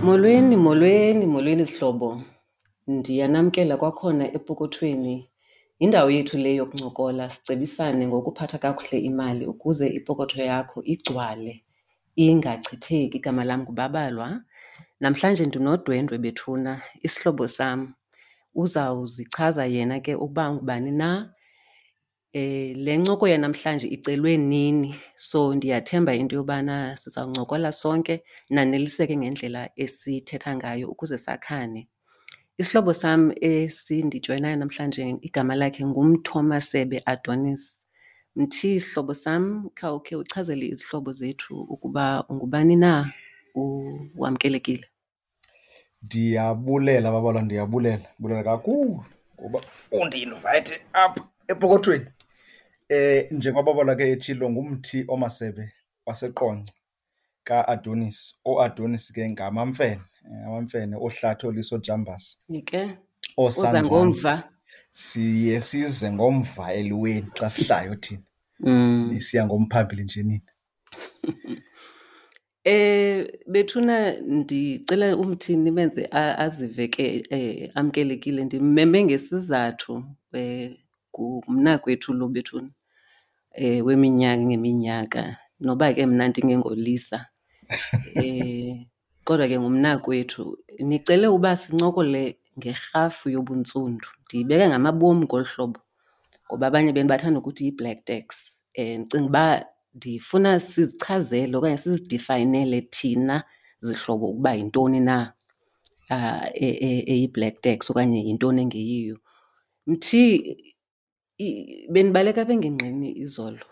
Molweni, molweni, molweni zihlobo. Ndiyanamkela kwakhona epokothweni. Yindawo yethu le yokuncokola sicebisane ngokuphatha kakuhle imali ukuze ipokotho yakho igcwale ingachitheki. Igama lam nguBabalwa. Namhlanje ndinodwendwe bethuna, isihlobo sam. Uzawuzichaza yena ke ukuba ungubani na. Le ncoko yanamhlanje icelwe nini, so ndiyathemba into yobana sizawuncokola sonke naneliseke ngendlela esithetha ngayo ukuze sakhane. Isihlobo sam esindijoyinayo namhlanje igama lakhe nguMthomasebe Adonis. Mthi, sihlobo sam, khawukhe uchazele izihlobo zethu ukuba ungubani na, wamkelekile. Ndiyabulela Babalwa, ndiyabulela, ndibulela kakhulu ngoba undi-invayithe apha epokothweni. Njengoba Babalwa ke etshilo, nguMthi oMasebe waseQonce kaAdonis. OoAdonis ke ngamaMfene, amaMfene, ooHlathi, ooLiso, ooJambase. Ke uza ngomva. Siye size ngomva eliweni xa sihlayo thina. Nisiya ngomphambili nje nina. Bethuna ndicela uMthi nimenze azive ke amkelekile. Ndimmeme ngesizathu, ngumnakwethu lo bethuna, weminyaka ngeminyaka, noba ke mna ndingengolisa. Kodwa ke ngumnakwethu. Nicele uba sincokole ngerhafu yobuntsundu. Ndiyibeka ngamabom ngolu hlobo ngoba abanye benu bathanda ukuthi yi-black tax. Ndicinga uba ndifuna sizichazele okanye sizidifayinele thina zihlobo ukuba yintoni na eyi-black tax okanye yintoni engeyiyo. Mthi, bendibaleka apha engingqini izolo.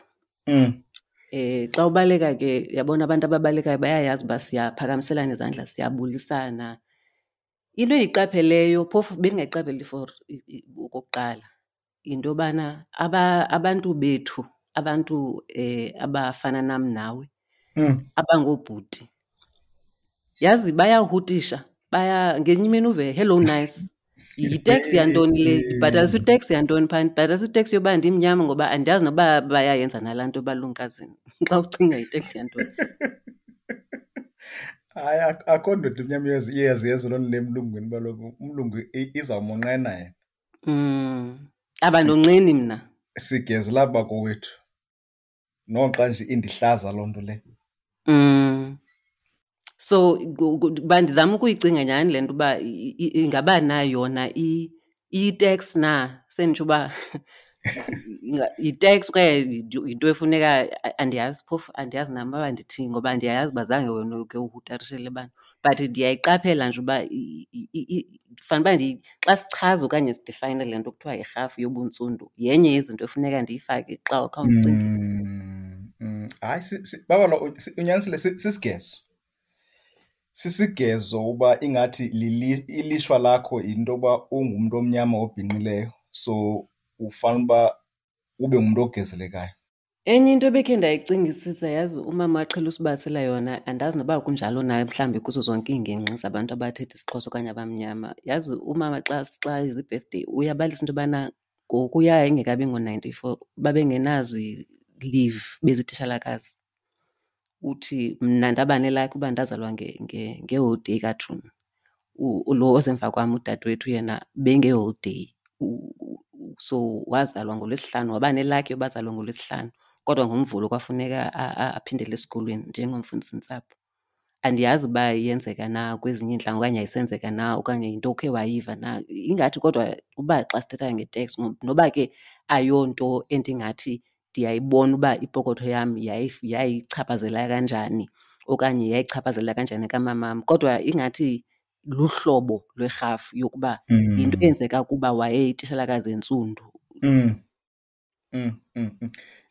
Xa ubaleka ke, yabona abantu ababalekayo bayayazi uba siyaphakamiselana izandla, siyabulisana. Into endiyiqapheleyo, phofu bendingayiqapheli for okokuqala, yinto yobana abantu bethu, abantu abafana nam nawe, abangoobhuti, yazi bayahutisha, baya ngenye imini uve hello nice. Yiteksi yantoni le? Ndibhatalisa iteksi yantoni phaa? Ndibhatalisa iteksi yoba ndimnyama ngoba andiyazi noba bayayenza nalaa nto balumkazini. Xa ucinga yiteksi yantoni? Hayi, akho ndoda imnyama iyaziyenza loo nto le emlungwini, uba kaloku umlungu izawumonqena yena. Abandonqeni mna. Sigezela bakowethu. Noxa nje indihlaza loo nto le. So, uba ndizama ukuyicinga nyhani le nto uba ingaba na yona iyi-tax na, senditsho uba yi-tax okanye yinto efuneka, andiyazi phofu, andiyazi nam uba ndithini ngoba ndiyayazi uba zange wena uke uhutarishele abantu. But ndiyayiqaphela nje uba fanele uba xa sichaza okanye sidifayine le nto kuthiwa yirhafu yobuntsundu, yenye yezinto efuneka ndiyifake xa khawundicingise. Hayi, Babalwa, unyanisile, sisigezo. Sisigezo uba ingathi ilishwa lakho yinto yoba ungumntu omnyama obhinqileyo, so ufanele uba ube ngumntu ogezelekayo. Enye into ebekhe ndayicingisisa, yazi umama aqhela usibalisela yona, andazi noba kunjalo na mhlawumbi kuzo zonke iingingqi zabantu abathetha isiXhosa okanye abamnyama. Yazi umama xa izi-birthday uyabalisa into yobana ngokuya ingekabi ngo-94 babengenazi leave bezititshalakazi. Uthi mna ndaba nelakhi uba ndazalwa ngeholiday kaJuni. Lo osemva kwam udadewethu yena bengeholiday. So wazalwa ngoLwesihlanu, waba nelakhi yoba azalwe ngoLwesihlanu, kodwa ngoMvulo kwafuneka aphindele esikolweni njengomfundisintsapho. Andiyazi uba iyenzeka na kwezinye iintlanga okanye ayisenzeka na okanye yinto okhe wayiva na. Ingathi kodwa uba xa sithetha nge-tax, noba ke ayonto endingathi ndiyayibona uba ipokotho yam yayichaphazela kanjani okanye yayichaphazela kanjani kamamam, kodwa ingathi luhlobo lwerhafu yokuba yinto eyenzeka kuba wayeyitishalakazi entsundu.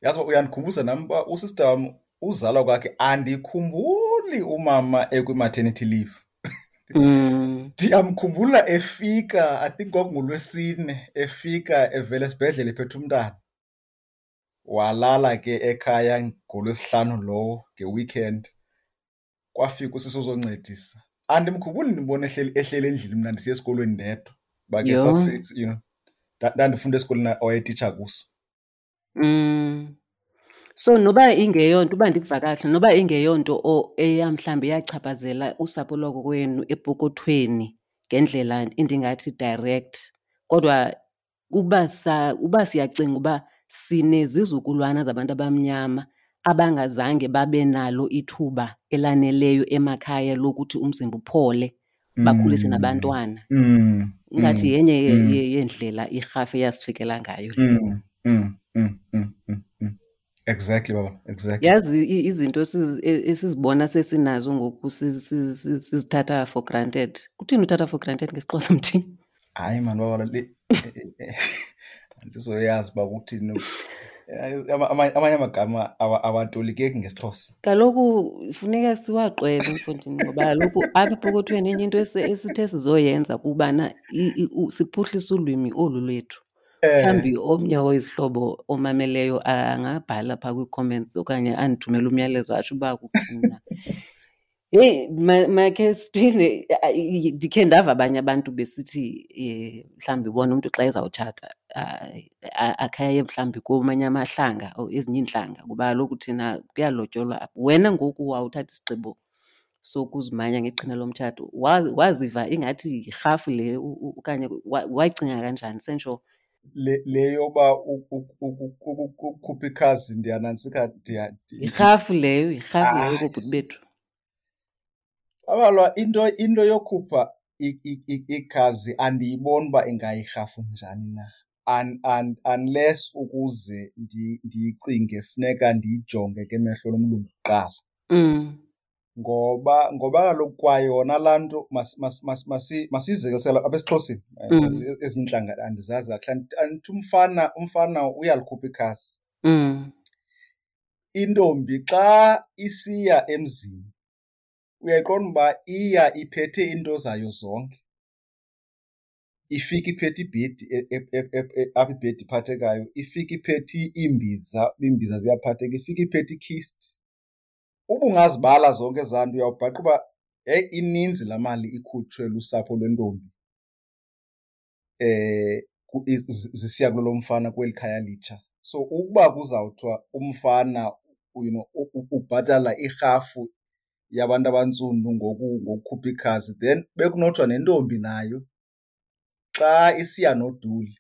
Yazi uba uyandikhumbuza nam uba usista wam uzalwa kwakhe andikhumbuli umama ekwi-maternity leave. Ndiyamkhumbula efika, I think kwakunguLwesine, efika evela esibhedlele ephethe umntana. Walala ke ekhaya ngoLwesihlanu lowo nge-weekend. Kwafika usisi ozoncedisa. Andimkhumbuli ndibona ehleli endlini mna ndisiya esikolweni ndedwa. Uba ke ndandifunda esikolweni awayetitsha kuso. So noba ingeyonto, uba ndikuva kakuhle, noba ingeyonto eya mhlawumbi yachaphazela usapho lwakokwenu epokothweni ngendlela endingathi direct, kodwa uba siyacinga uba sinezizukulwana zabantu abamnyama abangazange babe nalo ithuba elaneleyo emakhaya lokuthi umzimba uphole, bakhulise nabantwana. Ingathi yenye yeendlela irhafu eyasifikela ngayo le. Exactly, baba. Exactly. Yazi izinto esizibona sesinazo ngoku sizithatha for granted. Kuthini uthatha for granted ngesiXhosa, mthini? Hayi man, baba, le andizoyazi uba kuthini. Amanye amagama awatolikeki ngesiXhosa. Kaloku funeka siwaqwebe, mfondini, ngoba kaloku apha epokothweni enye into esithe sizoyenza kubana siphuhlise ulwimi olu lwethu. Mhlawumbi omnye wezihlobo omameleyo angabhala phaa kwii-comments okanye andithumele umyalezo atsho uba kuthini na. Heyi, makhe siphinde, ndikhe ndava abanye abantu besithi mhlawumbi bona umntu xa ezawutshata, akhe aye mhlawumbi komanye amahlanga or ezinye iintlanga, kuba kaloku thina kuyalotyolwa apha. Wena ngoku wawuthatha isigqibo sokuzimanya ngeqhina lomtshato, waziva ingathi yirhafu le okanye wayicinga kanjani sentsho? Le yoba ukukhupha ikhazi ndiyanantsika, Yirhafu leyo, yirhafu leyo Hayi. koobhuti bethu. Abalwa into yokhupha ikhazi andiyiboni uba ingayirhafu njani na. Unless ukuze ndiyicinge funeka ndiyijonge ke emehlo lomlungu kuqala. Ngoba kaloku kwayona laa nto masiyizekelisele apha esiXhoseni. Ezinye iintlanga andizazi kakuhle. Andithi umfana uyalikhupha ikhasi. Intombi xa isiya emzini uyayiqonda uba iya iphethe iinto zayo zonke. Ifike iphethe ibhedi, apha ibhedi iphathekayo, ifike iphethe iimbiza, iimbiza ziyaphatheka, ifike iphethe ikhist. Uba ungazibala zonke ezaa nto uyawubhaqa uba heyi ininzi laa mali ikhutshwe lusapho lwentombi zisiya kulo mfana kweli khaya litsha. So ukuba kuzawuthiwa umfana ubhatala irhafu yabantu abantsundu ngokukhupha ikhazi, then bekunothiwa nentombi nayo xa isiya noduli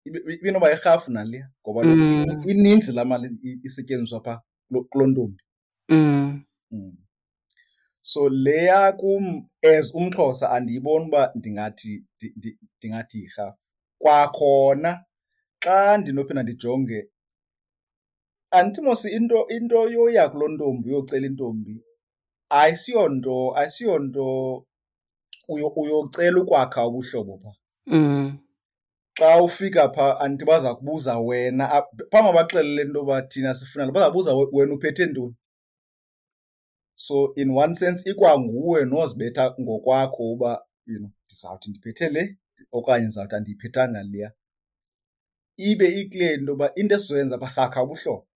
ibinoba yirhafu naleya, ngoba ininzi laa mali isetyenziswa phaa kuloo ntombi. So leya kum as umXhosa andiyiboni uba ndingathi yirhafu. Kwakhona xa ndinophinda ndijonge, andithi mos into yoya kuloo ntombi uyocela intombi ayisiyonto uyocela ukwakha ubuhlobo phaa. Xa ufika phaa andithi baza kubuza wena, phambi bakuxelele into yoba thina sifuna, baza kubuza wena uphethe ntoni. So in one sense ikwanguwe nozibetha ngokwakho uba ndizawuthi ndiphethe le okanye ndizawuthi andiyiphethanga leya. Ibe ikule nto yoba into esizoyenza apha sakha ubuhlobo,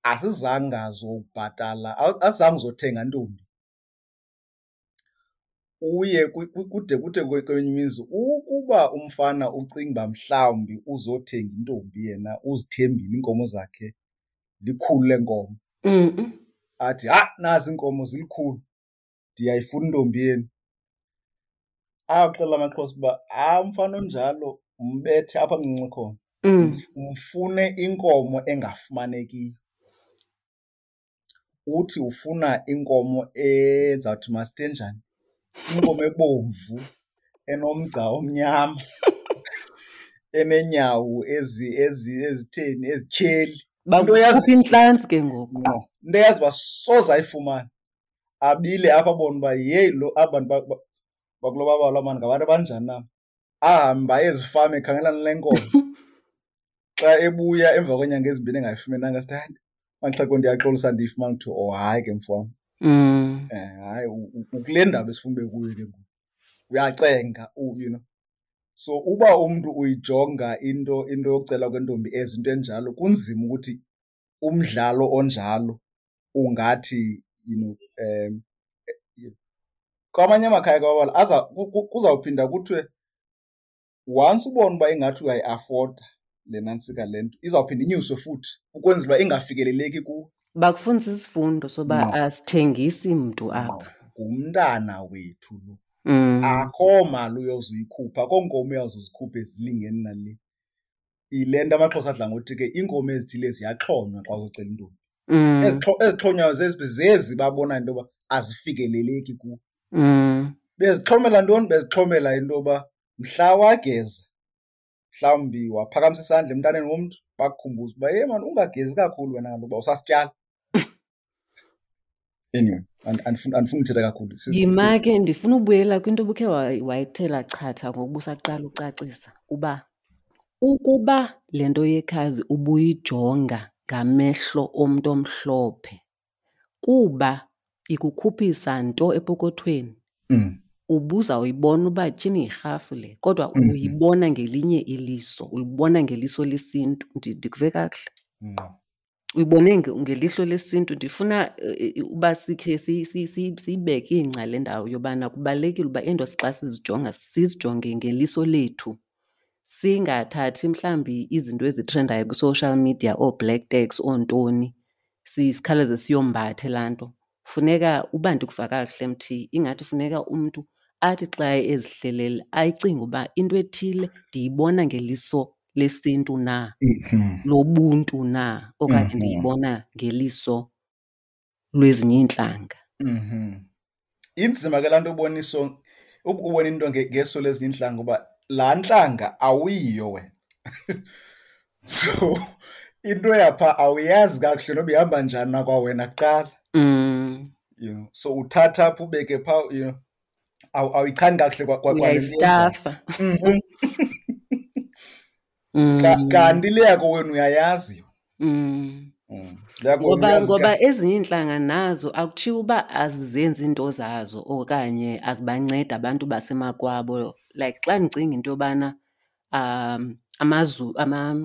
asizanga zobhatala, asizange uzothenga ntombi. Uye kude kuthe kwenye imizi ukuba umfana ucinga uba mhlawumbi uzothenga intombi yena uzithembile iinkomo zakhe likhulu leenkomo. Athi, ha, nazi iinkomo zilikhulu, ndiyayifuna intombi yenu. Axelela amaXhosa uba, ha, umfana onjalo umbethe apha mncinci khona. Umfune inkomo engafumanekiyo. Uthi ufuna inkomo ezawuthi masithe njani? Inkomo ebomvu, enomgca omnyama, eneenyawo ezitheni, ezityheli. Into eyazi Bakukhupha intlantsi ke ngoku. Ngqo. Into eyazi uba soze ayifumane. Abile apha abone uba yeyi lo aba bantu bakulo babala mani ngabantu abanjani na. Ahambe aye ezifama ekhangela le nkomo. Xa ebuya emva kweenyanga ezimbini engayifumenanga, sithi, hayi, maxhego ndiyaxolisa ndiyifumana. Kuthiwa, oh, hayi ke mfo wam. Hayi, ukule ndaba esifuna ube kuyo ke ngoku. Uyacenga, you know. So uba umntu uyijonga into yokucela kwentombi as into enjalo, kunzima ukuthi umdlalo onjalo ungathi, you know, kwamanye amakhaya kwabala, kuzawuphinda kuthiwe once ubona uba ingathi uyayi-afforda le nantsika le nto izawuphinda inyuswe futhi ukwenzela uba ingafikeleleki kuwe. Bakufundisa isifundo soba asithengisi mntu apha. Ngumntana wethu lo. Akho mali uyozuyikhupha, akho nkomo uyawuzuzikhupha ezilingeni nale. Yile nto amaXhosa adla ngothi ke iinkomo ezithile ziyaxhonywa xa uzocela intombi. Ezixhonywayo zezi zezi babona into yoba azifikeleleki kuwe. Bezixhomela ntoni? Bezixhomela into yoba mhla wageza, mhlawumbi waphakamisa isandla emntaneni womntu, bakukhumbuze uba yhe mani ungagezi kakhulu wena kaloku uba usasityala. Anyway, andifuni uthetha kakhulu. Yima ke, ndifuna ubuyela kwinto obukhe wayithela chatha ngokuba usaqala ucacisa uba ukuba le nto yekhazi ubuyijonga ngamehlo omntu omhlophe kuba ikukhuphisa nto epokothweni, ubuzawuyibona uba tyhini yirhafu le, kodwa uyibona ngelinye iliso, ulibona ngeliso lesintu. Ndikuve kakuhle? Ngqo. Uyibone ngelihlo lesintu. Ndifuna uba sikhe siyibeke ingca le ndawo yobana kubalulekile uba iinto xa sizijonga sizijonge ngeliso lethu, singathathi mhlawumbi izinto ezitrendayo kwi-social media, oo-black tax, oontoni, sikhawuleze siyombathe laa nto. Funeka uba ndikuva kakuhle Mthi, ingathi funeka umntu athi xa ezihlelele ayicinge uba into ethile ndiyibona ngeliso lesintu na, lobuntu na, okanye ndiyibona ngeliso lwezinye iintlanga. Inzima ke laa nto ubona iso, ubona into ngeso lezinye iintlanga ngoba laa ntlanga awuyiyo wena. So into yapha awuyazi kakuhle noba ihamba njani na kwawena kuqala. So uthatha apha ubeke phaa, awuyichani kakuhle kwa le nto yenzayo. Uyayistafa. Kanti le yakho wena uyayazi. Le yakho wena uyazi Ngoba kahle. ezinye iintlanga nazo akutshiwo uba azizenzi iinto zazo okanye azibancedi abantu basemakwabo. Like xa ndicinga into yobana,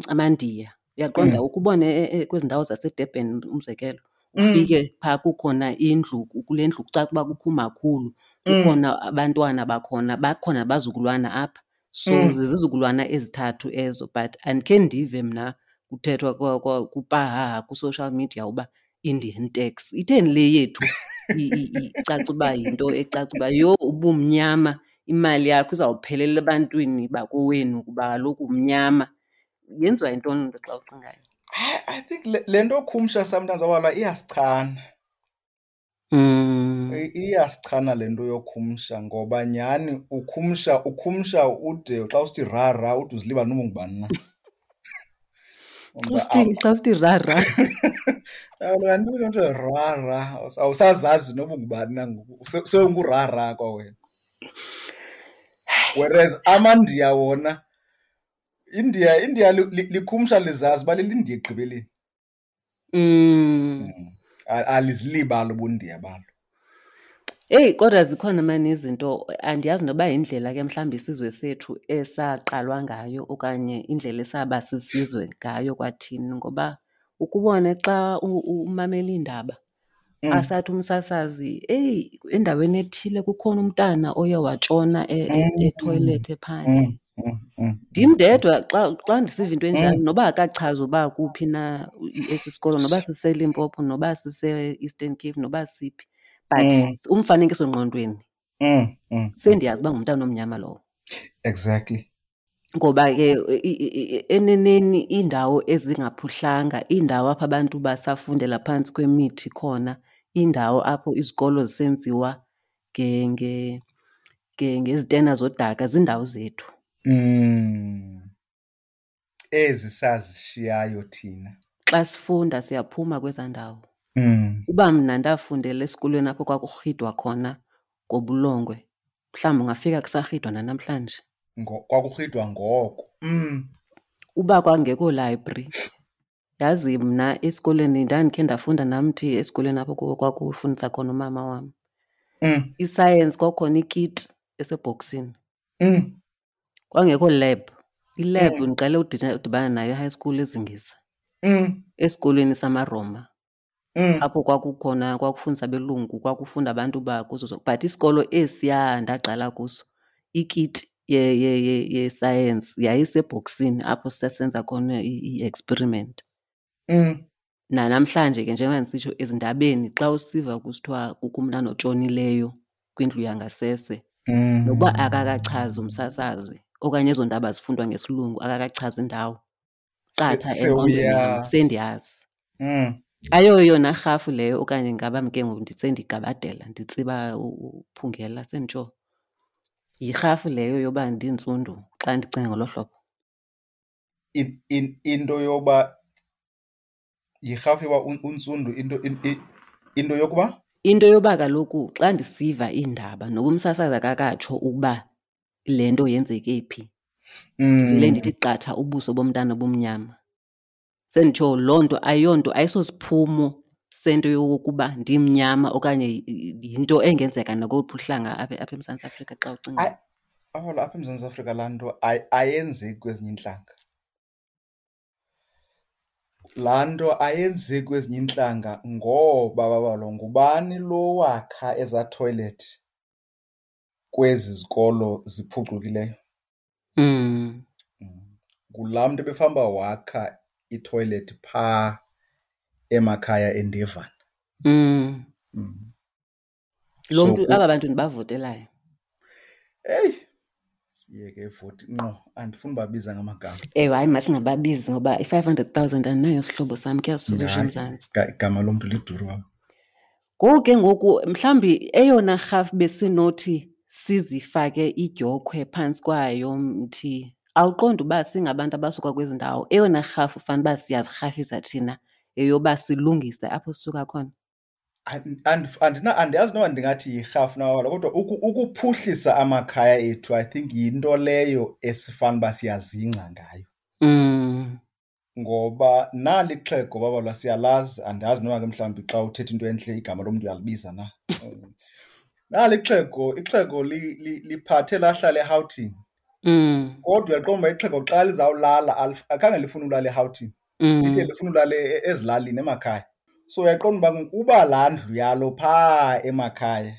amaNdiya, uyaqonda ukubone kwezi ndawo zaseDurban umzekelo, ufike phaa kukhona indlu, kule ndlu kucaca uba kukho umakhulu, kukhona abantwana bakhona, bakhona abazukulwana apha. So zizizukulwana ezithathu ezo, but andikhe ndive mna kuthethwa kupahaha kwi-social media uba Indian tax. Itheni le yethu icaca uba yinto ecaca uba yho ubumnyama, imali yakho izawuphelela ebantwini bakowenu kuba kaloku umnyama. Yenziwa yintoni loo nto xa ucingayo? I think le nto khumsha sometimes abalwa iyasichana. Iyasichana le nto yokhumsha ngoba nyhani ukhumsha ude xa usithi ra ra ude uzilibale noba ungubani na. Xa usithi ra ra. Kaloku kanti into ra ra, awusazazi noba ungubani na ngoku, sewungura ra kwawena. Whereas amaNdiya wona, India likhumsha lizazi uba lilindiya ekugqibeleni. Alizilibali ubundiya balo. Eyi, kodwa zikhona mani izinto, andiyazi noba yindlela ke mhlawumbi isizwe sethu esaqalwa ngayo okanye indlela esaba sisizwe ngayo kwathini, ngoba ukubone xa umamela iindaba, asathi umsasazi, eyi, endaweni ethile kukhona umntana oye watshona ethoyilethi ephandle. Ndim ndedwa xa ndisiva into enjalo, noba akachazi uba kuphi na esi sikolo, noba siseLimpopo, noba sise-Eastern Cape, noba siphi, but umfanekiso ngqondweni, sendiyazi uba ngumntana omnyama lowo. Ngoba ke eneneni iindawo ezingaphuhlanga, iindawo apho abantu basafundela phantsi kwemithi khona, iindawo apho izikolo zisenziwa ngezitena zodaka, ziindawo zethu. Ezi sazishiyayo thina. Xa sifunda siyaphuma kwezaa ndawo. Uba mna ndafundela esikolweni apho kwakurhidwa khona ngobulongwe, mhlawumbi ungafika kusarhidwa nanamhlanje. Kwakurhidwa ngoko. Uba kwangekho library, yazi mna esikolweni ndandikhe ndafunda namthi esikolweni apho kwakufundisa khona umama wam. Isayensi kwakukhona ikiti esebhoksini. Kwangekho lab. Ilab ndiqale udibana nayo e-high school eZingisa. Esikolweni samaRoma. Apho kwakukhona, kwakufundisa abelungu, kwakufunda abantu bakuzo zonke. But isikolo esiya ndaqala kuso, ikiti yesayensi yayisebhoksini apho sisenza khona i-experiment. Nanamhlanje ke njengoba ndisitsho ezindabeni xa usiva kusithiwa kukho umntana otshonileyo kwindlu yangasese, nokuba akakachazi umsasazi okanye ezo ndaba zifundwa ngesilungu akakachazi indawo, qatha engqondweni yam sendiyazi. Ayoyona rhafu leyo okanye ngaba ke ngoku sendigabadela nditsiba uphungela senditsho. Yirhafu leyo yoba ndintsundu xa ndicinga ngolo hlobo. Into yoba yirhafu yoba untsundu, into yokuba? Into yoba kaloku xa ndisiva iindaba noba umsasazi akakatsho ukuba le nto yenzeke phi, ndivele ndithi qatha ubuso bomntana obumnyama. Senditsho loo nto ayonto, ayisosiphumo sento yokokuba ndimnyama okanye yinto engenzeka nakoluphi uhlanga apha eMzantsi Afrika xa ucinga. Apha eMzantsi Afrika laa nto ayenzeki kwezinye iintlanga. Laa nto ayenzeki kwezinye iintlanga ngoba babalo ngubani lo wakha ezaa toilet kwezi zikolo ziphucukileyo? Ngulaa mntu ebefamba wakha itoilet phaa emakhaya eNdevana. Lo mntu, aba bantu ndibavotelayo. Eyi, siyeke ivoti ngqo, andifuni ubabiza ngamagama. Ewe, hayi masingababizi ngoba i-500,000 andinayo sihlobo sam, kuyasuka eMzantsi. Igama lomntu liduru wam. Ngoku ke ngoku mhlawumbi eyona rhafu besinothi sizifake idyokhwe phantsi kwayo mthi, awuqondi uba singabantu abasuka kwezi ndawo, eyona rhafu fanele uba siyazirhafisa thina yeyoba silungise apho sisuka khona? Andiyazi noba ndingathi yirhafu na wala, kodwa ukuphuhlisa amakhaya ethu I think yinto leyo esifana uba siyazingca ngayo. Ngoba nali ixhego babalwa siyalazi, andazi noba ke mhlawumbi xa uthetha into entle igama lomntu uyalibiza na. Nali ixhego, ixhego liphathe lahlala eRhawutini. Kodwa uyaqonda uba ixhego xa lizawulala, akhange lifune ulala eRhawutini. Lithe lifuna ulala ezilalini emakhaya. So uyaqonda uba uba laa ndlu yalo phaa emakhaya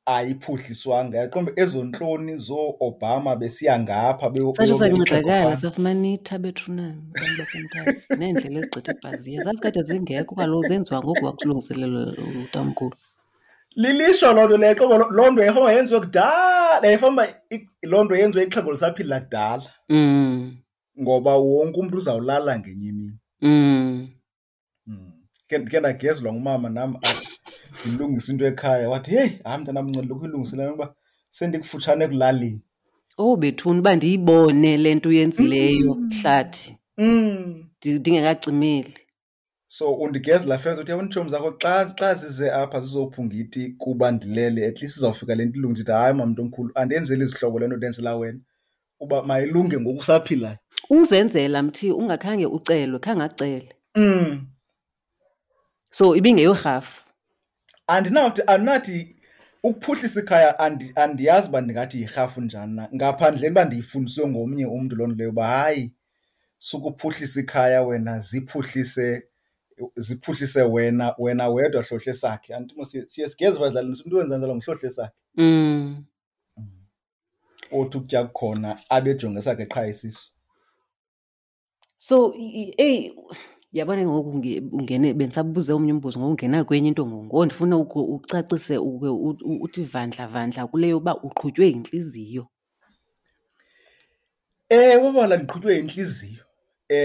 ayiphuhliswanga, uyaqonda uba ezo ntloni zoo-Obama besiya ngapha Satsho beyobeka ixhego sancedakala, phantsi. safumana itha bethunana abantu baseMthatha neendlela ezigqitha ebhaziya. Zazikade zingekho kaloku, zenziwa ngoku kwakulungiselelwa utamkhulu. Lilishwa loo nto leyo, qobo loo nto yayifamba yenziwe kudala, yayifamba loo nto yenziwe ixhego lisaphila kudala. Ngoba wonke umntu uzawulala ngenye imini. Ke ndagezwa ngumama nam apha, ndilungisa into ekhaya, wathi, heyi, hayi mntanam, nceda lokhu uyilungisele uba sendikufutshane ekulaleni. Oh bethuna, uba ndiyibone le nto uyenzileyo, Hlathi. Ndingekacimeli. So undigezela first, uthi, yabona iitshomi zakho xa zize apha zizophunga iti kuba ndilele, at least izawufika le nto ilunge. Ndithi, hayi mamntu omkhulu, andenzeli izihlobo le nto ndenzela wena, uba mayilunge ngoku usaphilayo. Uzenzela mthi ungakhange ucelwe, khange acele. So ibingeyorhafu. Andinathi ukuphuhlisa ikhaya, andiyazi uba ndingathi yirhafu njani na, ngaphandleni uba ndiyifundiswe ngomnye umntu loo nto leyo uba hayi, sukuphuhlisa ikhaya wena, ziphuhlise wena wedwa hlohle sakhe. Andithi mos siye sigeze badlalini, umntu wenza njalo nguhlohle sakhe. Othi ukutya kukhona abejonge sakhe qha isisu. So, eyi, yabona ngoku ungene, bendisabuze omnye umbuzo, ngoku ungena kwenye into ngoku. Ngoku ndifuna ucacise uke uthi vandla vandla kule yoba uqhutywe yintliziyo. Ewe, bala ndiqhutywe yintliziyo.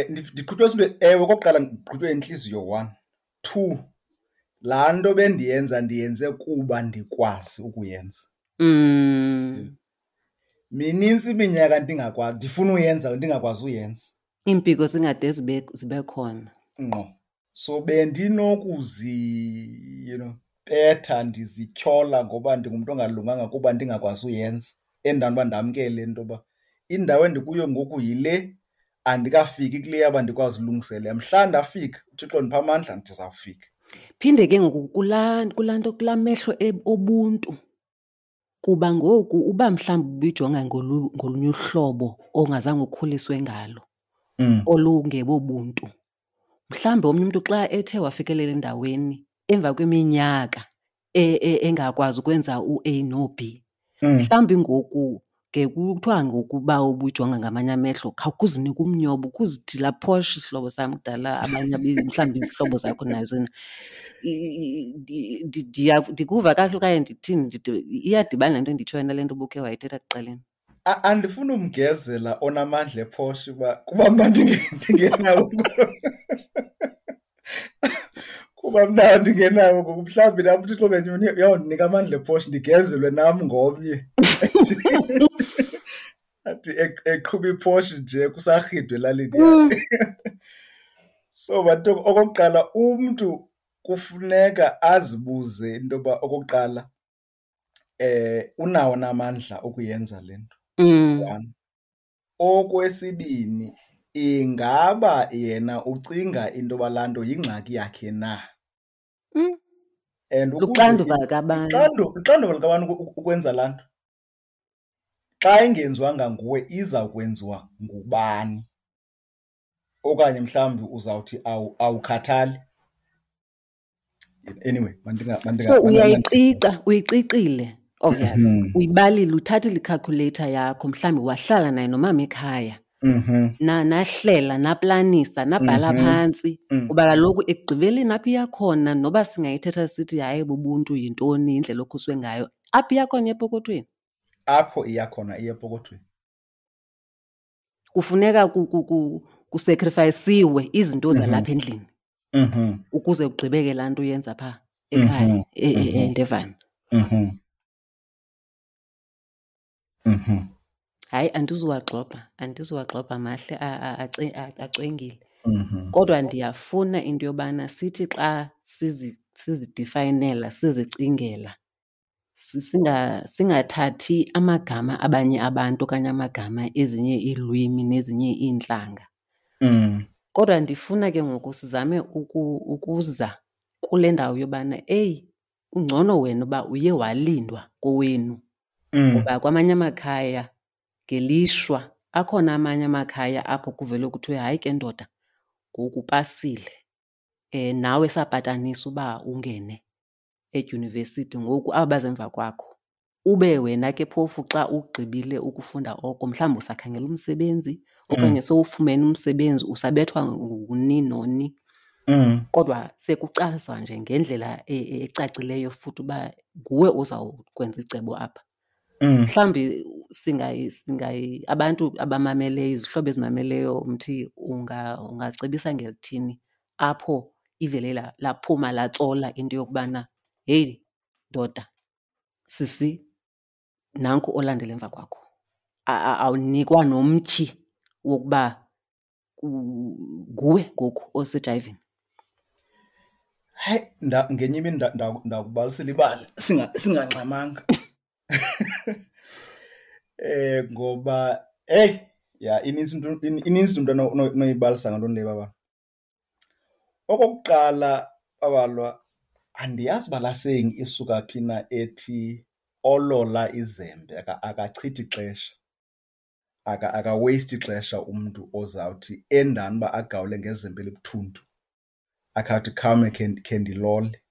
Ndiqhutywe zinto, ewe, okokuqala ndiqhutywe yintliziyo, 1. 2, laa nto bendiyenza ndiyenze kuba ndikwazi ukuyenza. Minintsi iminyaka ndingakwazi, ndifuna uyenza, ndingakwazi uyenza. Iimpiko zingade zibe khona. Ngqo. So bendinokuzi, betha ndizityhola ngoba ndingumntu ongalunganga kuba ndingakwazi uyenza. Endaweni uba ndamkele into yoba indawo endikuyo ngoku yile, andikafiki kule yaba ndikwazi ulungiselela. Mhla ndafika, uThixo ndipha amandla, ndizawufika. Phinde ke ngoku kulaa nto, kulaa mehlo obuntu. Kuba ngoku uba mhlawumbi ubuyijonga ngolunye uhlobo ongazange ukhuliswe ngalo, olungebobuntu. Mhlawumbi omnye umntu xa ethe wafikelela endaweni emva kweminyaka engakwazi ukwenza u-A no-B, mhlawumbi ngoku Ke kuthiwa ngokuba ubujonga ngamanye amehlo, khawukuzinike umnyobo, ukuzithi laa Porsche sihlobo sam kudala, abanye mhlawumbi izihlobo zakho nazo. Ndikuva kakuhle okanye ndithini? Iyadibana le nto endiyitshoyo nale nto ubukhe wayithetha ekuqaleni. Andifuni umgezela onamandla ePorsche uba kuba mna ndingenawo. Kuba mna ndingenawo ngoku, mhlawumbi nam uThixo ngenye imini uyawundinika amandla ePorsche ndigezelwe nam ngomnye. Athi eqhuba iPorsche nje kusarhidwe elalini yakhe. So bantu, okokuqala umntu kufuneka azibuze into yoba okokuqala unawo na amandla okuyenza le nto. One. Okwesibini, ingaba yena ucinga into yoba laa nto yingxaki yakhe na? And ukuze Luxanduva likabantu. Luxanduva likabantu ukwenza laa nto. Xa ingenziwanga nguwe iza kwenziwa ngubani? Okanye mhlawumbi uzawuthi awukhathali. Anyway, So uyayiqiqa, uyiqiqile, obvious. Uyibalile, uthathile i-calculator yakho, mhlawumbi wahlala naye nomama ekhaya. Nahlela, naplanisa, nabhala phantsi. Kuba kaloku ekugqibeleni apho iya khona, noba singayithetha sithi hayi bubuntu yintoni, indlela okhuswe ngayo, apho iya khona epokothweni. Apho iya khona iya epokothweni. Kufuneka kusacrificeiwe izinto zalapha endlini. Ukuze ugqibeke laa nto uyenza phaa ekhaya, eNdevana. Hayi, andizuwagxobha mahle, acwengile. Kodwa ndiyafuna into yobana sithi xa sizidefayinela, sizicingela, singathathi amagama abanye abantu okanye amagama ezinye iilwimi nezinye iintlanga. Kodwa ndifuna ke ngoku sizame ukuza kule ndawo yobana, eyi, ungcono wena uba uye walindwa kowenu. Ngoba kwamanye amakhaya ngelishwa akhona amanye amakhaya apho kuvele kuthiwe hayi ke ndoda, ngoku upasile. Nawe sapatanisa uba ungene edyunivesithi, ngoku aba baza emva kwakho. Ube wena ke phofu xa ugqibile ukufunda oko, mhlawumbi usakhangela umsebenzi okanye sowufumene umsebenzi, usabethwa nguni noni. Kodwa sekucazwa nje ngendlela ecacileyo futhi uba nguwe ozawukwenza icebo apha. Mhlawumbi abantu abamameleyo, izihlobo ezimameleyo, Mthi, ungacebisa ngelithini apho ivele laphuma latsola into yokubana heyi ndoda, sisi, nanku olandela emva kwakho. Awunikwa nomtyhi wokuba nguwe ngoku osejayivini. Hayi, ngenye imini ndakubalisela ibali singangxamanga. Ngoba, hey, ya, inintsi into, inintsi into onoyibalisa ngaloo nto leyo, baba. Okokuqala, babalwa, andiyazi uba laa saying isuka phi na ethi olola izembe akachithi ixesha. Aka-waste ixesha umntu ozawuthi endani uba agawule ngezembe elibuthuntu, akhe athi khawume khe ndilole.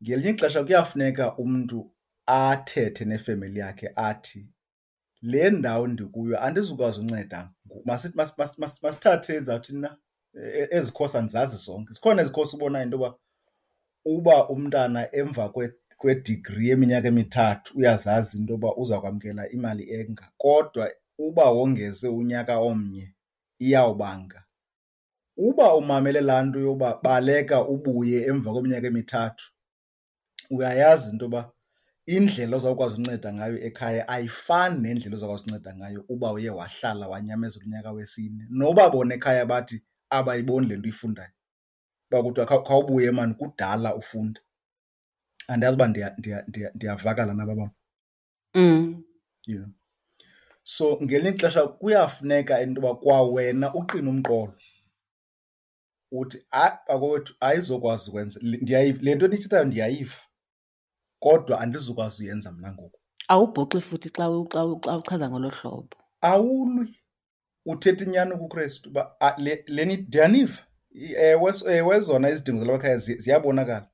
Ngelinye ixesha kuyafuneka umntu athethe nefemeli yakhe athi le ndawo ndikuyo andizukwazi unceda ngoku. Masithathe ndizawuthini na, ezi khosi andizazi zonke. Zikhona ezi khosi ubonayo into yoba uba umntana emva kwedigri yeminyaka emithathu uyazazi into yoba uza kwamkela imali enga, kodwa uba wongeze unyaka omnye iyawubanga. Uba umamele laa nto yoba baleka ubuye emva kweminyaka emithathu, uyayazi into yoba indlela ozawukwazi unceda ngayo ekhaya ayifani nendlela ozawukwazi unceda ngayo uba uye wahlala wanyamezela unyaka wesine. Noba bona ekhaya bathi abayiboni le nto uyifundayo, uba kuthiwa khawubuye maan kudala ufunda. Andiyazi uba ndiyavakala na babam. Yeah. So ngelinye ixesha kuyafuneka into yoba kwawena uqine umqolo uthi hayi bakowethu ayizokwazi ukwenza le nto niyithethayo ndiyayiva, kodwa andizukwazi uyenza mna ngoku. Awubhoxi futhi xa uchaza ngolo hlobo. Awulwi, uthetha inyani kuKrestu uba, le, le ni, ndiyaniva. Ewe, ewe, zona izidingo zalapha ekhaya ziyabonakala,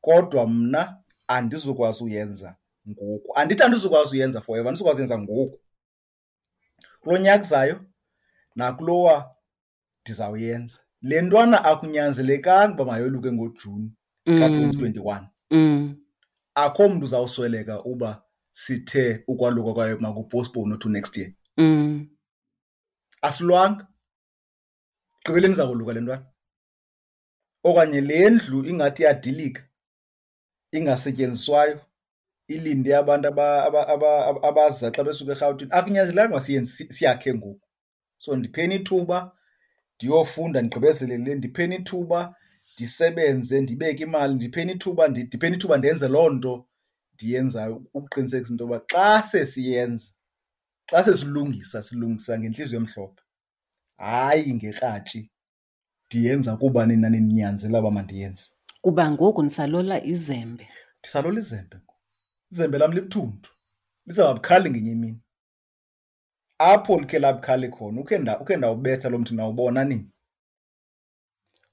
kodwa mna andizukwazi uyenza ngoku. Andithi andizukwazi uyenza forever, andizukwazi uyenza ngoku. Kulo nyaka uzayo nakulowa ndizawuyenza. Le ntwana akunyanzelekanga uba mayoluke ngoJuni ka-2021. Akho mntu uzawusweleka uba sithe ukwaluka kwayo makupostpone to next year. Asilwanga. Gqibeleni izakoluka le ntwana. Okanye le ndlu ingathi iyadilika, ingasetyenziswayo, ilinde abantu abaza xa besuka eRhawutini. Akunyanzelekanga uba siyenze, siyakhe ngoku. So ndipheni ithuba ndiyofunda ndigqibezele le, ndipheni ithuba ndisebenze ndibeke imali, ndipheni ithuba, ndipheni ithuba ndenze loo nto ndiyenzayo ukuqinisekisa into yoba xa sesiyenza, xa sesilungisa, silungisa ngentliziyo emhlophe, hayi ngekratshi ndiyenza kuba nina nindinyanzela uba mandiyenze. Kuba ngoku nisalola izembe. Ndisalola izembe ngoku. Izembe lam libuthuntu, lizawuba bukhali ngenye imini. Apho likhe labukhali khona, ukhe ndawubetha lo mthi nawubona nini.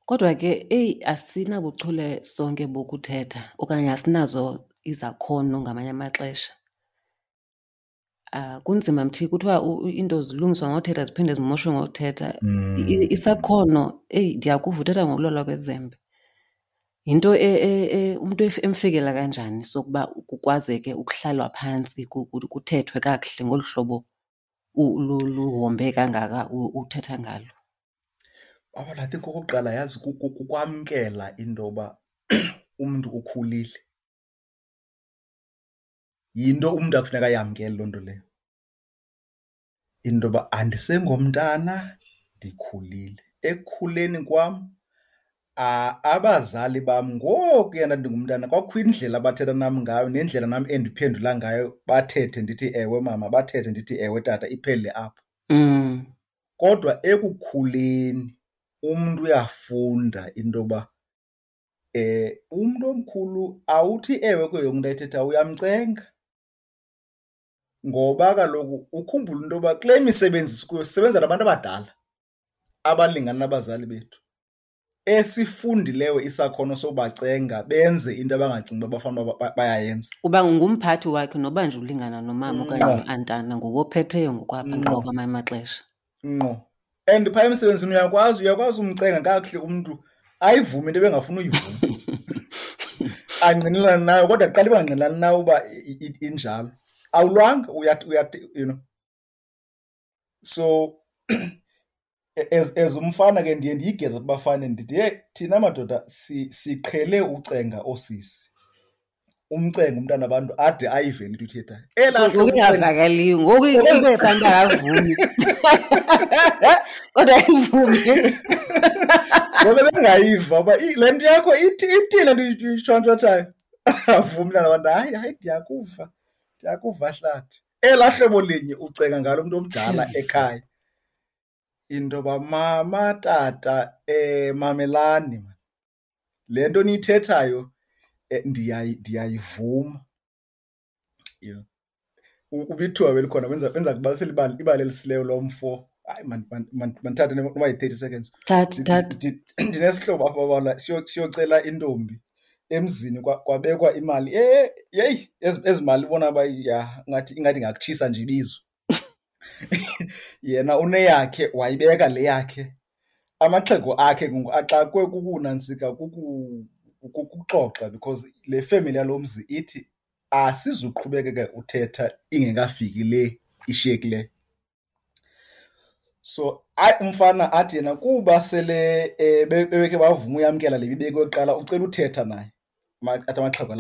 Kodwa ke, eyi, asinabuchule sonke bokuthetha okanye asinazo izakhono ngamanye amaxesha. Kunzima mthi, kuthiwa iinto zilungiswa ngothetha ziphinde zimoshwe ngothetha. Isakhono, eyi, ndiyakuva uthetha ngokulolwa kwezembe. Yinto umntu emfikela kanjani sokuba kukwazeke ukuhlalwa phantsi kuthethwe kakuhle ngolu hlobo luhombe kangaka uthetha ngalo? Baba, I think okokuqala yazi kukwamkela into yoba umntu ukhulile. Yinto umntu akufuneka ayamkele loo nto leyo. Into yoba andisengomntana, ndikhulile. Ekukhuleni kwam, abazali bam ngokuya ndandingumntana kwakukho indlela abathetha nam ngayo nendlela nam endiphendula ngayo, bathethe ndithi ewe mama, bathethe ndithi ewe tata, iphele apho. Kodwa ekukhuleni umntu uyafunda into yoba umntu omkhulu awuthi ewe kuyo yonke into ayithethayo, uyamcenga. Ngoba kaloku ukhumbule into yoba kule misebenzi sikuyo sisebenza nabantu abadala abalingana nabazali bethu, esifundileyo isakhono sobacenga benze into abangacingi uba bafanele uba bayayenza. Uba ngumphathi wakhe noba nje ulingana nomama okanye no-antana, nguwe ophetheyo ngokwapha kwamanye amaxesha. Ngqo. And phaa emsebenzini uyakwazi umcenga kakuhle umntu ayivume into ebengafuni uyivuma. Angqinelane nayo, kodwa kuqala ibangqinelani nayo uba injalo. Awulwanga, uyathi, you know. So as umfana ke ndiye ndiyigeze kubafana ndithi, hey, thina madoda siqhele ucenga oosisi. Umcenga umntana wabantu ade ayive into uyithethayo. Elaa Ngoku hlobo ucenga ingavakaliyo, ngoku into efana uba akavumi. Kodwa ayivumi. Ngoku bengayiva uba le nto yakho ithi le nto uyitshontshotshayo. Avumi umntana wabantu, hayi, hayi, ndiyakuva, ndiyakuva hlathi. Elaa hlobo linye ucenga ngalo mntu omdala Jeez. ekhaya. Into yoba mama, tata, mamelani man. Le nto niyithethayo, ndiyayivuma. You know. Ubithiwa belikhona, benza kubalisela ibali elisileyo lo mfo. Hayi, mandithathe noba yi-30 seconds. Thatha, thatha. Ndinesihlobo apha babala, siyocela intombi emzini, kwabekwa imali. Yeyi, ezi mali ubona uba ya, ingathi ingakutshisa nje ibizo. Yena uneyakhe, wayibeka le yakhe. Amaxhego akhe ngoku axakwe kukunantsika, kukuxoxa, because le family yalo mzi ithi asizuqhubekeka uthetha ingekafiki le ishiyekileyo. So hayi, umfana athi yena kuba sele bebekhe bavuma uyamkela le ibibekwe kuqala, ucela uthetha naye. Athi amaxhego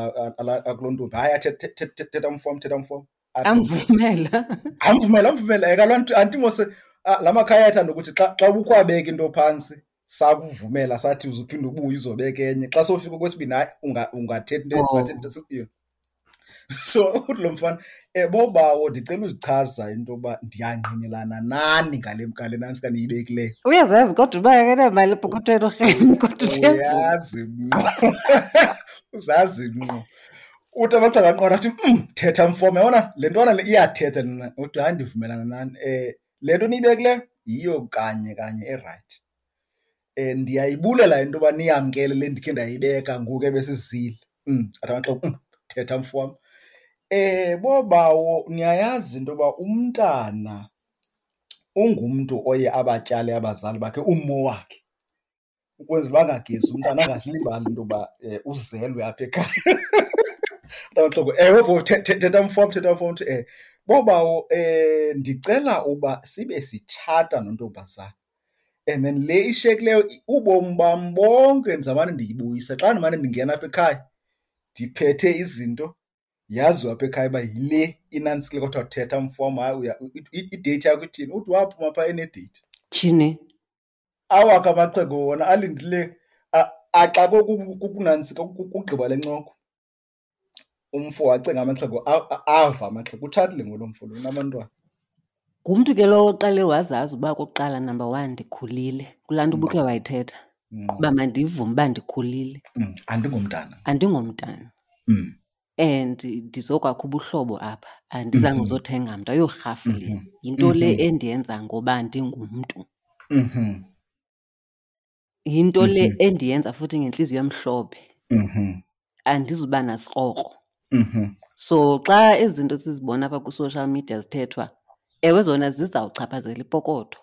akuloo ntombi, hayi, athi, thetha mfo, thetha mfo. Athi Amvumela. Amvumela, amvumela. Kaloku anti mose, la makhaya ayathanda ukuthi xa ubukwabeka into phantsi, sakuvumela sathi uzuphinde ubuye uzobeka enye. Xa sowufika kwesibini, hayi, ungathetha into, ungathetha into esikuyo. So uthi lo mfana, bobawo, ndicela uzichaza into yoba ndiyangqinelana nani ngale nantsi kaniyibekileyo. Uyazazi kodwa uba akanamali epokothweni urheme, kodwa uthe Uyazi ngqo. Uzazi ngqo. Uthi amaxhego aqonda athi, thetha mfo, yabona le ntwana le iyathetha lena. Uthi hayi, ndivumelana nani. Le nto niyibekileyo yiyo kanye kanye erayithi. Ndiyayibulela into yoba niyamkele le ndikhe ndayibeka ngoku ebesizile. Athi amaxhego, thetha mfo wam. Bobawo, niyayazi into yoba umntana ungumntu oye abatyale abazali bakhe ummo wakhe ukwenzela uba angagezi umntana angazilibali into yoba uzelwe apha ekhaya. Mntamaxhego, ewe bho, thetha mfo wam, thetha mfo wam. Uthi, bobawo, ndicela uba sibe sitshata nontombazana. And then le ishiyekileyo ubomi bam bonke ndizawumane ndiyibuyisa. Xa ndimane ndingena apha ekhaya ndiphethe izinto, yaziwa apha ekhaya uba yile inantsikile. Kodwa thetha mfo wam, hayi, ideyithi yakho ithini? Uthi waphuma phaa enedeyithi. Tyhini. Awakhe amaxhego wona alindile axakwe kukunantsika, kugqiba le ncoko. Umfo wacenga amaxhego, ava amaxhego. Utshatile ngolo mfo lo, unabantwana. Ngumntu ke lowo oqale wazazi uba okokuqala, number one, ndikhulile. Kulaa nto ubukhe wayithetha. Uba mandivume uba ndikhulile. Andingomntana. Andingomntana. And ndizokwakha ubuhlobo apha. Andizange uzothenga mntu, ayorhafu le. Yinto le endiyenza ngoba ndingumntu. Yinto le endiyenza futhi ngentliziyo emhlophe. Andizuba nasikrokro. So xa ezi zinto sizibona apha kwi-social media zithethwa, ewe zona zizawuchaphazela ipokotho.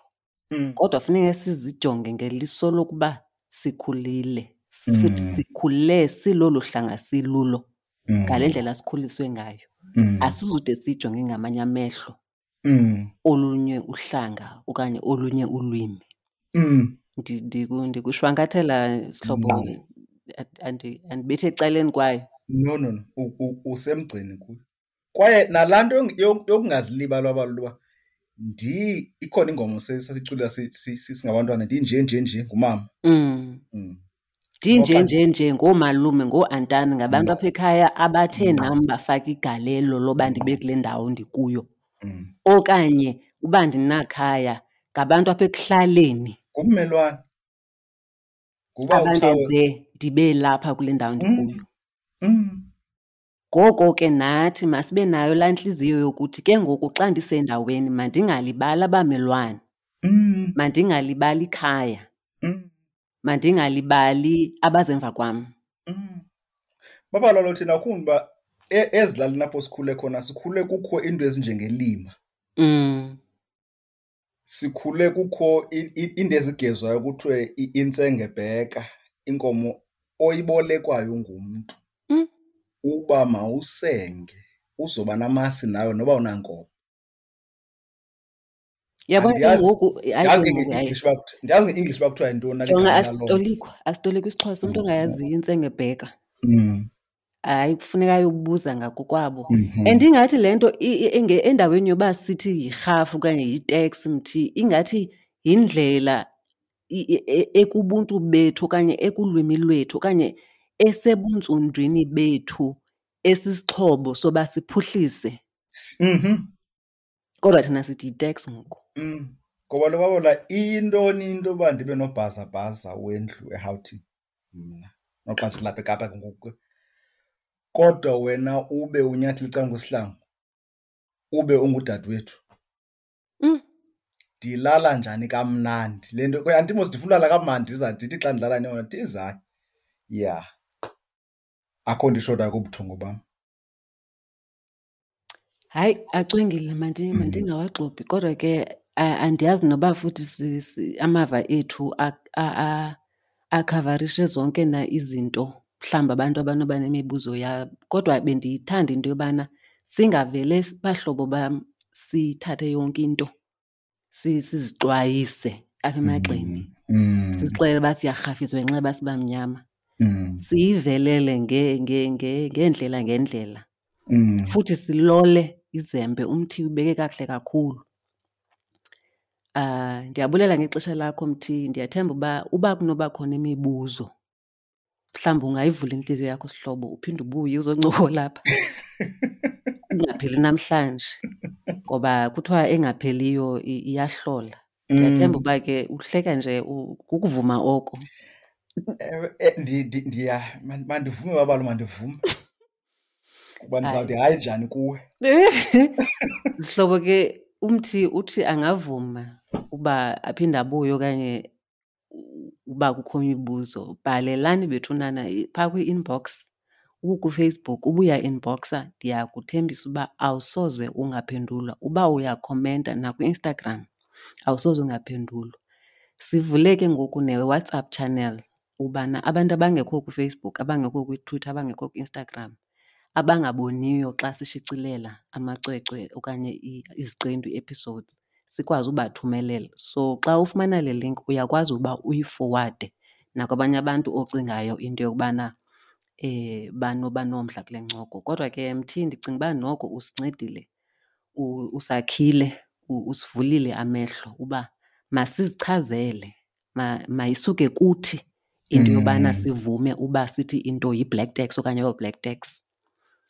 Kodwa funeka sizijonge ngeliso lokuba sikhulile. Futhi sikhule silolu hlanga silulo. Ngale ndlela sikhuliswe ngayo. Asizude sijonge ngamanye amehlo olunye uhlanga okanye olunye ulwimi. Ndikushwankathela sihlobo, andibethi ecaleni kwayo. No, no, no. Usemgceni kuyo. Kwaye nalaa nto yokungazilibali abalulwa uba ikhona ingoma sasicula singabantwana, ndinje, nje, nje, ngumama. Ndinje, Okanye nje, nje, ngoomalume, ngooantani, ngabantu apha ekhaya abathe nam bafaka igalelo loba ndibe kule ndawo ndikuyo. Okanye uba ndinakhaya, ngabantu apha ekuhlaleni. Ngummelwane. Nguba Abandenze utshawe. ndibe lapha kule ndawo ndikuyo. Ngoko ke nathi masibe nayo laa ntliziyo yokuthi ke ngoku xa ndisendaweni mandingalibali abamelwane. Mandingalibali ikhaya. Mandingalibali abazemva kwam. Baba lalo thina ukhumbuka uba ezilalini apho sikhule khona, sikhule kukho iinto ezinjengelima. Sikhule kukho iinto ezigezwayo kuthiwe intsengebheka, inkomo oyibolekwayo ngumntu. Uba mawusenge, uzoba namasi nawe noba unankomo. Yabona ke Andiyazi, ngoku, hayi ndiyazi ke ngoku, hayi. nge-English uba kuthi-, ndiyazi nge-English uba kuthiwa yintoni na le Jonga, gama laloo nto. asitolikwa isiXhosa, umntu ongayaziyo intsengebheka. Hayi, kufuneka ayobuza ngakokwabo. And ingathi le nto endaweni yoba sithi yirhafu okanye yiteksi mthi, ingathi yindlela ekubuntu bethu okanye ekulwimi lwethu okanye esebuntsundwini bethu esisixhobo soba siphuhlise. Kodwa thina sithi yiteksi ngoku. Ngoba lo babola iyintoni into yoba ndibe nobhazabhaza wendlu eRhawutini mna, noxa ndilapha eKapa ke ngoku. Kodwa wena ube unyathela ecaleni kwesihlangu, ube ungudadewethu. Ndilala njani kamnandi? Le nto, kwe, andimos ndifuna ulala kamnandi, ndiza ndithi xa ndilala neyona, ndiza. Yeah. Akho nto ishotayo kubuthongo bam. Hayi, acwengile, mandingawaxopi. Kodwa ke, andiyazi noba futhi amava ethu akhavarishe zonke na izinto, mhlawumbi abantu abanoba nemibuzo yabo. Kodwa bendiyithanda into yobana singavele bahlobo bam sithathe yonke into, sizixwayise apha emagxeni. Sizixelele uba siyarhafiswa ngenxa yoba sibamnyama. Siyivelele ngeendlela ngeendlela. Futhi silole izembe, umthi ubeke kakuhle kakhulu. Ndiyabulela ngexesha lakho mthi, ndiyathemba uba kunoba khona imibuzo, mhlawumbi ungayivula intliziyo yakho sihlobo, uphinde ubuye uzoncokola apha. Ingapheli namhlanje, ngoba kuthiwa engapheliyo iyahlola. Ndiyathemba uba ke uhleka nje kukuvuma oko. Ewe, mandivume babalo, mandivume. Kuba ndizawuthi hayi njani kuwe. Sihlobo ke, umthi uthi angavuma uba aphinde abuye okanye uba kukho imibuzo, bhalelani bethunana phaa kwi-inbox. UkuFacebook uba uyainboxa ndiyakuthembisa uba awusoze ungaphendulwa. Uba uyakhomenta nakwiInstagram awusoze ungaphendulwa. Sivule ke ngoku neWhatsApp channel ubana abantu abangekho kuFacebook, abangekho kwiTwitter, abangekho kwiInstagram, abangaboniyo xa sishicilela amacwecwe okanye iziqendu, ii-episodes, sikwazi ubathumelela. So xa ufumana le link uyakwazi uba uyifowade nakwabanye abantu ocingayo into yokubana banoba nomdla kule ncoko. Kodwa ke Mthi, ndicinga uba noko usincedile, usakhile, usivulile amehlo uba masizichazele, mayisuke kuthi into yobana sivume uba sithi into yi-black tax okanye ayo-black tax.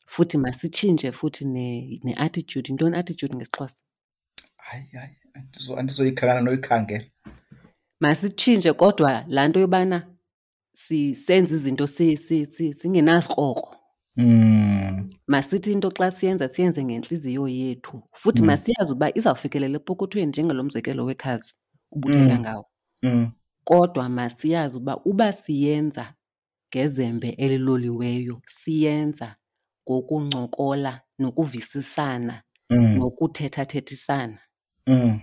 Futhi masitshintshe futhi ne-attitude. Yintoni i-attitude ngesiXhosa? Hayi, hayi, andizoyikhangela noyikhangela. Masitshintshe kodwa laa nto yobana senze izinto singenasikrokro. Masithi into xa siyenza siyenze ngentliziyo yethu. Futhi masiyazi uba izawufikelela epokothweni njengalo mzekelo wekhazi ubuthetha ngawo. Kodwa masiyazi uba siyenza ngezembe eliloliweyo, siyenza ngokuncokola nokuvisisana nokuthethathethisana.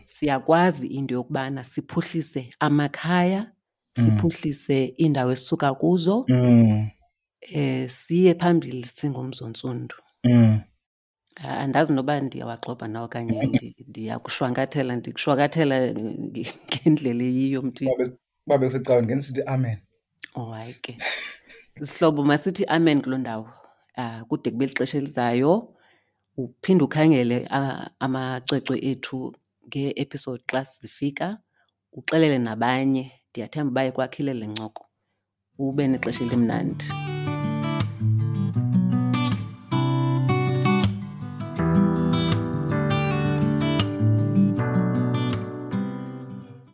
Siyakwazi into yokubana siphuhlise amakhaya, siphuhlise iindawo esisuka kuzo, siye phambili singumzontsundu. Andazi noba ndiyawagxobha na okanye ndiyakushwankathela, ndikushwankathela ngendlela eyiyo, Mthi. Uba bekusecaweni ngenisithi amen. Oh, hayi ke. Sihlobo, masithi amen kuloo ndawo. Kude kube lixesha elizayo. Uphinde ukhangele amacwecwe ethu ngee-episode xa zifika, uxelele nabanye. Ndiyathemba uba ikwakhile le ncoko. Ube nexesha elimnandi.